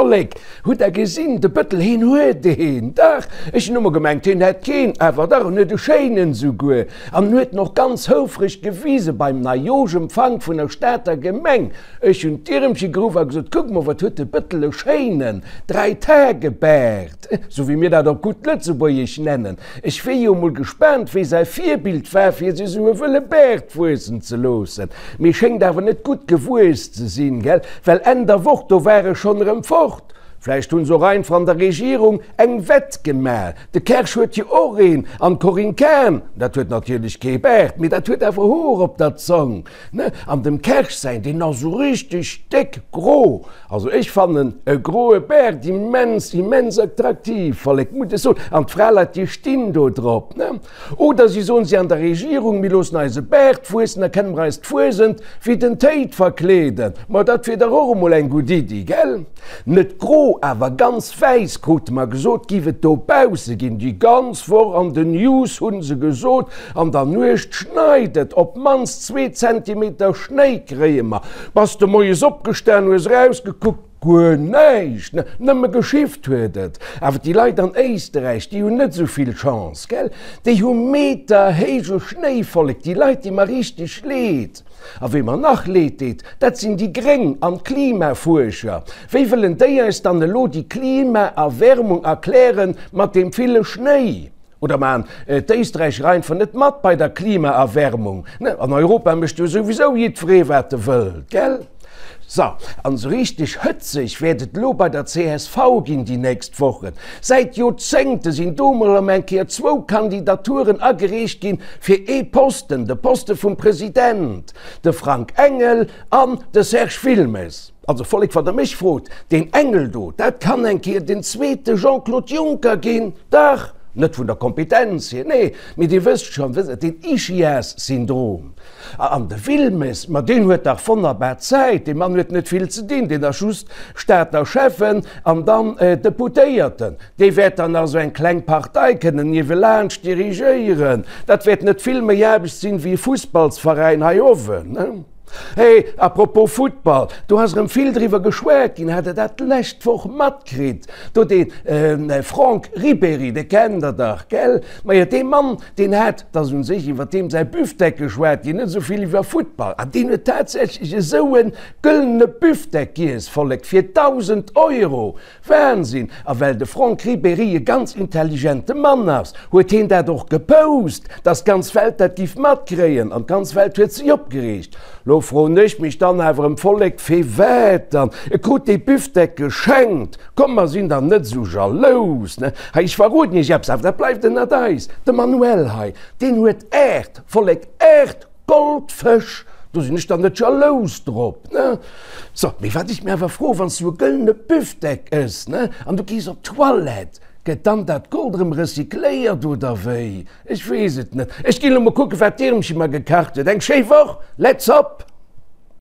Vollek, hutt der gesinn, de Bëttel, heen huet een, dach, ech hunn ëmmer gemengt, heen hätt keen, awer dach, en huet e schéinen souguer, an en huet en och ganz houfreg gewise beim Neijooschempfank vun der Stater Gemeng. Ech hunn d'Ieremche geruff a gesot, Kuck mol, wat huet de Bëttel e schéinen Dräitagebaart, sou wéi mir dat op gutt Lëtzebuergesch nennen. Ech wier jo mol gespaant, wéi säi Virbild war, fir sech esou e wëlle Baart wuessen ze loossen. Mee schéngt awer net gutt gewuess ze sinn, gell? Well Enn der Woch, do war e schonn erëm fort. Vläicht hunn se och einfach an der Regierung eng Wett gemaach. De Kersch huet jo och een, an d'Corinne Cahen, dat huet natierlech kee Baart, mee dat huet awer Hoer op der Zong, ne? An dem Kersch säin, deen ass esou richteg déck gro. Also ech fannen e groe Baart immens, immens attraktiv, Vollek, muss ech soen. An d'Fraleit, déi stinn do drop, ne? Oder si soen, si an der Regierung, mir loossen eis e Baart wuessen, da kënne mer eis d'Fuesent wéi den Téid verkleeden. Ma dat wier dach och emol eng gutt Iddi, gell? Net gro, awer ganz wäiss, krute mer gesot, giff et dobausse ginn. Déi ganz Woch an den News hu se gesot, An der Nuecht schneit et, op d'mannst zwee Zentimeter Schnéi kréie mer. Bass de moies opgestan, hues erausgekuckt, guer näischt, nëmme geschifft huet et. Awer déi Leit an Éisterräich, déi hunn net esou vill Chance, gell? Déi hu meterhéije Schnéivollek, déi Leit di mer richteg leed. A wee mer nach leed deet, dat sinn déi Gréng an d'Klimafuerscher. Wéi wëllen déi eis dann elo déi Klimaerwärmung erklären mat deem ville Schnéi? Oder maan d'Éisträicher einfach net mat bei der Klimaerwärmung? Ne, an Europa mécht jo souwisou jiddweree wat e wëllt, gell? So, an esou richteg hëtzeg wäert et elo bei der csv ginn déi nächst Wochen. Säit Joerzéngte sinn do mol erëm eng Kéier zwou Kandidaturen agereecht ginn fir ee Posten, de Poste vum President, de Frank Engel an de Serge Wilmes. Also Vollek, wann der mech frot, deen Engel do, dat kann eng Kéier den zweete Jean-Claude Juncker ginn, dach, net vun der Kompetenz hier, nee, mee Dir wësst schonn, den Ischias-Syndrom. An de Wilmes, ma deen huet dach wonnerbar Zäit, dee Mann huet net vill ze dinn, deen ass just Stater Schäffen an dann Deputéierten. Dee wäert dann nach esou eng kleng Partei kënnen niewelaanscht dirigéieren. Dat wäert net vill méi Aarbecht sinn, wéi e Fussballsveräin hei owen. Hey, à propos Futtball, do ass erëm vill driwwer geschwat ginn, hat der dat d'lescht Woch matkritt? Do dee Franck Ribéry, dee kennt der dach, gell? Majo, dee Mann, deen hat, 't ass un sech iwwer deem säi Büfdeck geschwat ginn, net esou vill iwwer Futtball, an deen huet tatsächlech esou e gëllene Büfdeck giess, Vollek, fir 1.000 Euro! Wahnsinn! A well de Franck Ribéry e ganz intelligente Mann ass, huet heen dat och gepost, dass d'ganz Welt dat giff matkréien. An d'ganz Welt huet sech opgereegt. Lo froen ech mech dann awer em Vollek, firwat dann? E krut dee Büfdeck geschenkt. Komm mer sinn dann net esou jalous, ne? Hei, ech verroden iech eppes, awer dat bleift ënnert eis, De Manuel hei, deen huet 8, Vollek, 8! Goldfësch, do sinn ech dann net jalous drop, ne? So, mee wat ech mir awer froen, wann s du e gëllene Büfdeck ëss, ne, an du gees op d'Toilette, gëtt dann dat Gold erëm recycléiert oder wéi? Ech weess et net. Ech ginn elo mol kucken, wat d'Irmchen mer gekacht huet. Eng schéi Woch! Let's hop!